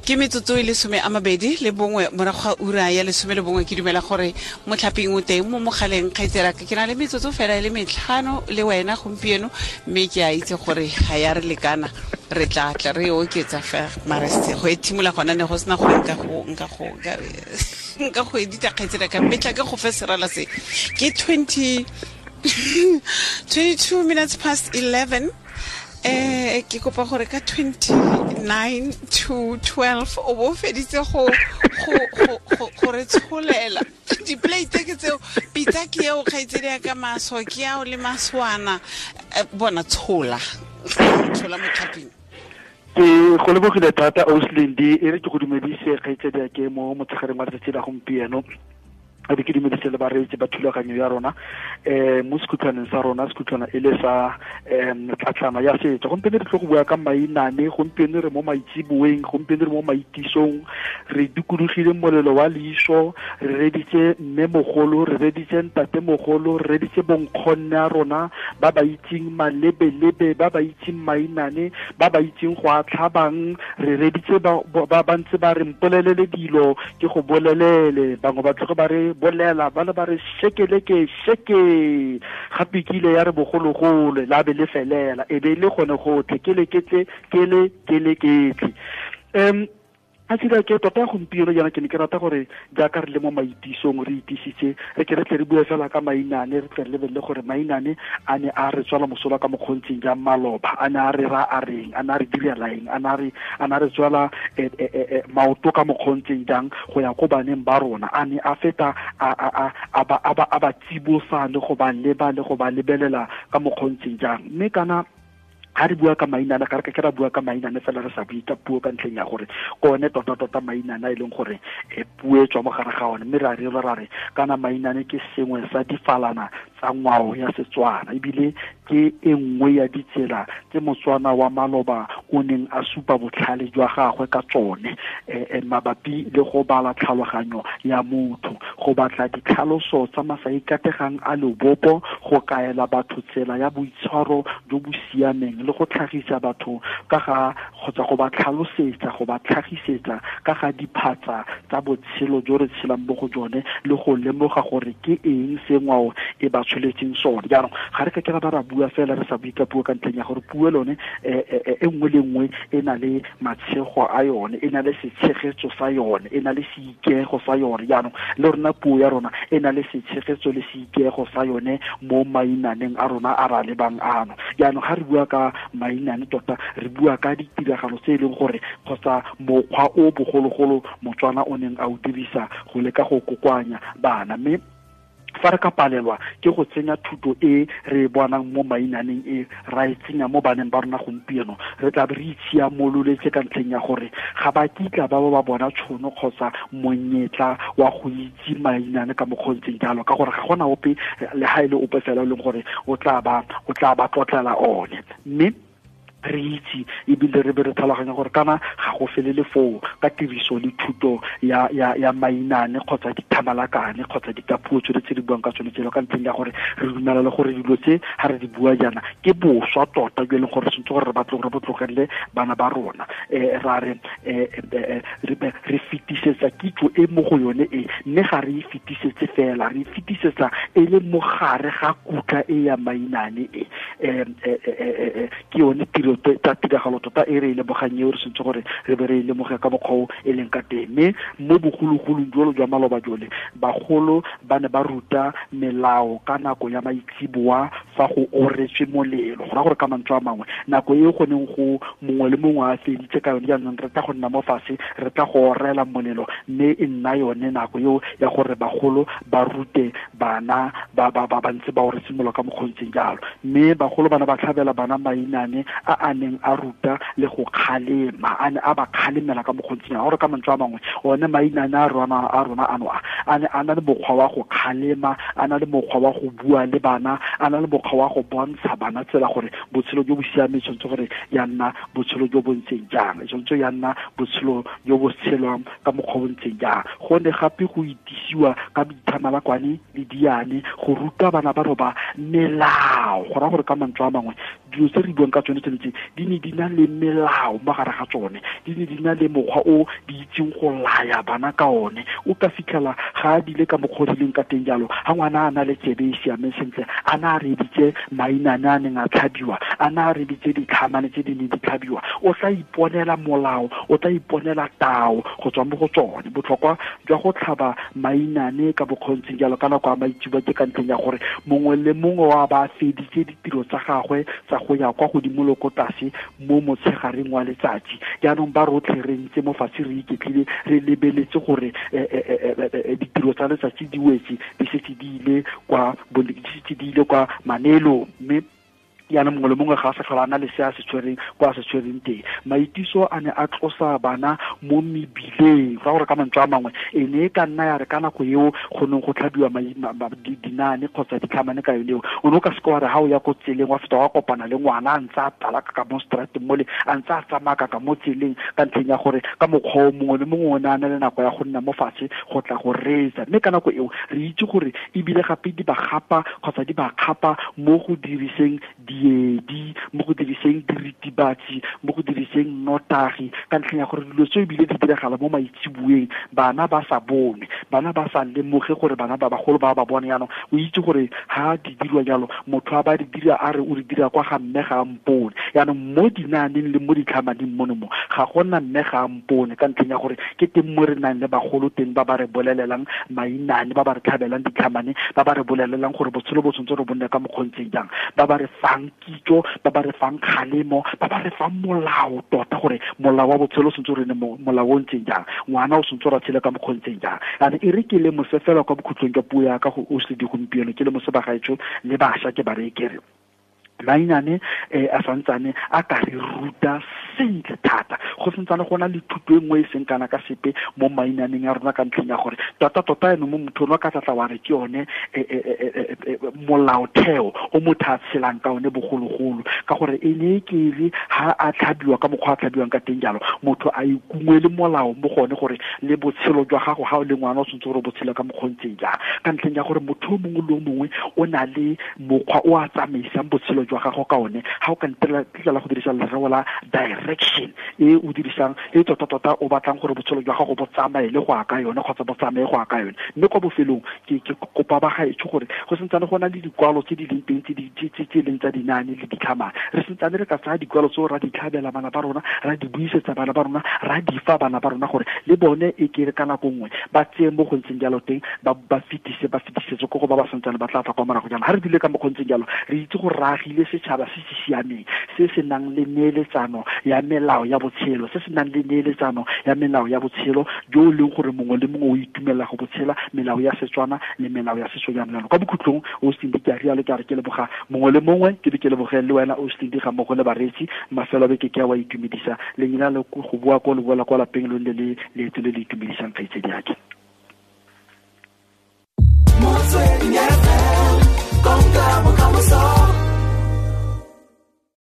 Ke metsotso e 21 morago ga ura ya 11. Ke dumela gore motlhaping o teng mo mogaleng. Kgaitseraka, ke na le metsotso fela e le 5 le wena gompieno, mme ke a itse gore ga ya re lekana, re tla tla re oketsa fa mare go e thimola gona ne go sena gore nka go edita. Kgaitseraka, mme tla ke go fe serala se ke 22 minutes past 11. Ke kopa gore ka 29 to 12 o bo feditse go re tsholela diplate ke tseo, pitsa ke eo, kgaitsedi ya ka, maso ke ao le maswana. Bona, tshola, tshola motlhaping. Ke go lebogile thata, Auslindi. E re ke go dumedise, kgaitsedi ya ke, mo motshegareng wa letsatsi la gompieno, a be ke dumedise le bareetsi ba thulaganyo ya rona mo sekhutlhwaneng sa rona, sekhutlhwana e le sa tlatlana ya setso. Gompieno re tlo go bua ka mainane. Gompieno re mo maitseboeng, gompieno re mo maitisong, re dikologile molelo wa leiso, re reditse mme mogolo, re reditse ntate mogolo, re reditse bonkgonne a rona ba ba itseng malebelebe, ba ba itseng mainane, ba ba itseng go a tlhabang. Re reditse ba ntse ba re mpolelele dilo ke go bolelele, bangwe ba tloge ba re bolela, ba le ba re shekeleke sheke. Gape ke ile ya re bogologolo la be le felela e be le gone gotlhe ke le ketle ke le ke le ketle. A tsira ke tota gompieno jaana ke ne ke rata gore jaaka re le mo maitisong, re itisitse, re ke re tle re bue fela ka mainane, re tle re lebelele gore mainane a ne a re tswala mosola ka mokgontseng jang maloba, a ne a re ra a reng, a ne a re direla eng, a ne a re tswala maoto ka mokgontseng jang go ya ko baneng ba rona, a ne a feta a ba tsibosa le go ba leba le go ba lebelela ka mokgontseng jang. Mme kana ga re bua ka mainane, ga re ka ke ra bua ka mainane fela re sa bue ka puo, ka ntlheng ya gore ke one tota-tota mainane a e leng gore puo e tswa mo gare ga one. Mme ra re ra re kana mainane ke sengwe sa difalana tsa ngwao ya Setswana, ebile ke e nngwe ya ditsela tse Motswana wa maloba o neng a supa botlhale jwa gagwe ka tsone mabapi le go bala tlhaloganyo ya motho, go batla ditlhaloso tsa masaikategang a lobopo, go kaela batho tsela ya boitshwaro jo bo siameng, le go tlhagisa batho ka ga kgotsa go ba tlhalosetsa, go ba tlhagisetsa ka ga diphatsa tsa botshelo jo re tshelang mo go jone, le go lemoga gore ke eng se ngwao e ba tsholetseng sone. Jaanong ga re ka ke ra ba ra bua fela re sa bue ka puo, ka ntlheng ya gore puo lone e nngwe le nngwe e na le matshego a yone, e na le setshegetso sa yone, e na le seikego sa yone. Jaanong le rona puo ya rona e na le setshegetso le seikego sa yone mo mainaneng a rona a ra lebang ano. Jaanong ga re bua ka mainane, tota re bua ka ditiragalo tse e leng gore kgotsa mokgwa o bogologolo Motswana o neng a o dirisa go leka go kokoanya bana. Mme fa re ka palelwa ke go tsenya thuto e re e bonang mo mainaneng e, ra e tsenya mo baneng ba rona gompieno, re tla be re itshiamololetse, ka ntlheng ya gore ga ba kitla ba ba bona tšhono kgotsa monyetla wa go itse mainane ka mokgontseng jalo, ka gore ga gona ope le ga e le ope fela e leng gore o tla ba tlotlela one. Mme re itse ebile re be re tlhaloganya gore kana ga go felele foo ka tiriso le thuto ya mainane kgotsa dithamalakane kgotsa dikapuo tsone tse di buang ka tsone tselo, ka ntlheng ya gore re dumela le gore dilo tse ga re di bua jaana ke boswa tota jo e leng gore sentse gore re batle gore bo tlogelele bana ba rona. Ra re re fetisetsa kitso e mo go yone e, mme ga re e fetisetse fela, re e fetisetsa e le mogare ga kutla e ya mainane e. Ke yone tiro tsa tiragalo tota e re e lemogang eo, re sentse gore re be re e lemoge ka mokgwa o e leng ka teng. Mme mo bogologolong jolo jwa maloba jole, bagolo ba ne ba ruta melao ka nako ya maitsiboa fa go oretswe molelo. Go raya gore ka mantswe a mangwe, nako e go neng go mongwe le mongwe a feditse ka yone, jaanong re tla go nna mo fatshe, re tla go orela molelo, mme e nna yone nako eo ya gore bagolo ba rute bana ba ba ba ntse ba oretse molelo ka mokgontseng jalo. Mme bagolo bana ba tlhabela bana mainane a a neng a ruta le go kgalema, a ne a ba kgalemela ka mokgontseng jalo. Gore ka mantswe a mangwe, one mainane a rona ano a ne a na le mokgwa wa go kgalema, a na le mokgwa wa go bua le bana, a na le mokgwa wa go bontsha bana tsela gore botshelo jo bo siameng tshwanetse gore ya nna botshelo jo bo ntseng jang, tshwanetse ya nna botshelo jo bo tshelwang ka mokgwa o ntseng jang. Go ne gape go itisiwa ka dithamalakwane le diane go ruta bana ba roba melao. Go raya gore ka mantswe a mangwe, dilo tse re buang ka tsone tsone tse gore di ne di na le melao mo gare ga tsone, di ne di na le mokgwa o di itseng go laya bana ka one. O ka fitlhela ga a dile ka mokgwa o dileng ka teng jalo, ga ngwana a na le tsebe e siameng sentle, a na a reeditse mainane a neng a tlhabiwa, a na a reeditse ditlhamane tse di neng di tlhabiwa, o tla iponela molao, o tla iponela tao go tswa mo go tsone. Botlhokwa jwa go tlhaba mainane ka bokgontseng jalo ka nako ya maitseboa ke ka ntlheng ya gore mongwe le mongwe wa ba feditse ditiro tsa gagwe tsa go ya kwa godimo le ko tlase mo motshegareng wa letsatsi. Jaanong ba rotlhe re ntse mo fatshe re iketlile, re lebeletse gore ditiro tsa letsatsi di wetse, di setse di ile kwa di setse di ile kwa maneelong, mme jaanong mongwe le mongwe ga a sa tlhola a na le se a se tshwereng kwa a se tshwereng teng. Maitiso a ne a tlosa bana mo mebileng, go gore ka mantswe a mangwe e ne e ka nna ya re ka nako eo go neng go tlhabiwa dinaane kgotsa ditlhamane ka yone eo, o ne o ka seke wa re ga o ya ko tseleng wa feta wa kopana le ngwana a ntse a talaka ka mo strateng mole, a ntse a tsamaya ka mo tseleng, ka ntlheng ya gore ka mokgwa o mongwe le mongwe o ne a na le nako ya go nna mo fatshe go tla go reetsa. Mme ka nako eo re itse gore ebile gape di ba gapa kgotsa di ba kgapa mo go diriseng diedi, mo go diriseng diritibatsi, mo go diriseng nnotagi, ka ntlheng ya gore dilo tseo ebile di diragala mo maitsiboeng, bana ba sa bone, bana ba sa lemoge gore bana ba bagolo ba ba bone. Jaanong o itse gore ha di dirwa jalo, motho a ba di dira a re o di dira kwa ga mme ga a mpone. Jaanong mo dinaaneng le mo ditlhamaneng mono mo ga gona mme ga a mpone, ka ntlheng ya gore ke teng mo re nang le bagolo teng ba ba re bolelelang mainane, ba ba re tlhabelang ditlhamane, ba ba re bolelelang gore botshelo bo tshwanetse re bonne ka mokgontseng jang, ba ba re fang kitso, ba ba re fang kgalemo, ba ba re fang molao tota, gore molao wa botshelo o tshwanetse re ne molao o ntseng jang, ngwana o tshwanetse ra tshele ka mokgontseng jang. And e re ke le mose fela kwa bokhutlong jwa puo ya ka go o se di gompieno, ke le mose bagaetsho le bašwa ke ba re kere mainane a santsane a ka re ruta sentle thata. Go santsane go na le thuto e nngwe e seng kana ka sepe mo mainaneng a rona, ka ntlheng ya gore tota-tota eno mo motho ono ka tlatla wa re ke yone molaotheo o motho a tshelang ka one bogologolo, ka gore e ne e kere ha a tlhabiwa ka mokgwa a tlhabiwang ka teng jalo, motho a ikungwele molao mo gone gore le botshelo jwa gago ga o le ngwana o tshwanetse gore o botshele ka mokgwa o ntseng jang, ka ntlheng ya gore motho o mongwe le o mongwe o na le mokgwa o a tsamaisang botshelo jwa gago ka one. Ha o ka ntlela go dirisa lereo la direction e o dirisang e tota-tota o batlang gore botshelo jwa gago bo tsamaye le go ya ka yone kgotsa bo tsamaye go ya ka yone. Mme kwa bofelong ke kopa ba gaetsho gore go santsane go na le dikwalo tse di leng teng tse leng tsa dinaane le ditlhamane, re santsane re ka tsaya dikwalo tseo ra di tlhabela bana ba rona, ra di buisetsa bana ba rona, ra di fa bana ba rona gore le bone e kere ka nako nngwe ba tseye mo go ntseng jalo teng, ba fetise ba fetisetse ko go ba ba santsane ba tla tla kwa morago jalo. Ha re dile ka mo go ntseng jalo, re itse gore re agile setšhaba se se siameng, se se nang le neeletsano ya melao ya botshelo, se se nang le neeletsano ya melao ya botshelo jo e leng gore mongwe le mongwe o itumelela go botshela melao ya Setswana le melao ya setso jang jalo. Kwa bokhutlong o Cindy ke a rialo, ke a re ke leboga mongwe le mongwe, ke be ke leboge le wena o Cindy ga mmogo le bareetsi. Mafelo a beke ke a wa itumedisa, lenyela le go boa ko le boela kwa lapeng lo nne le leeto le le itumedisang kgaitsedi yake. Motsweding.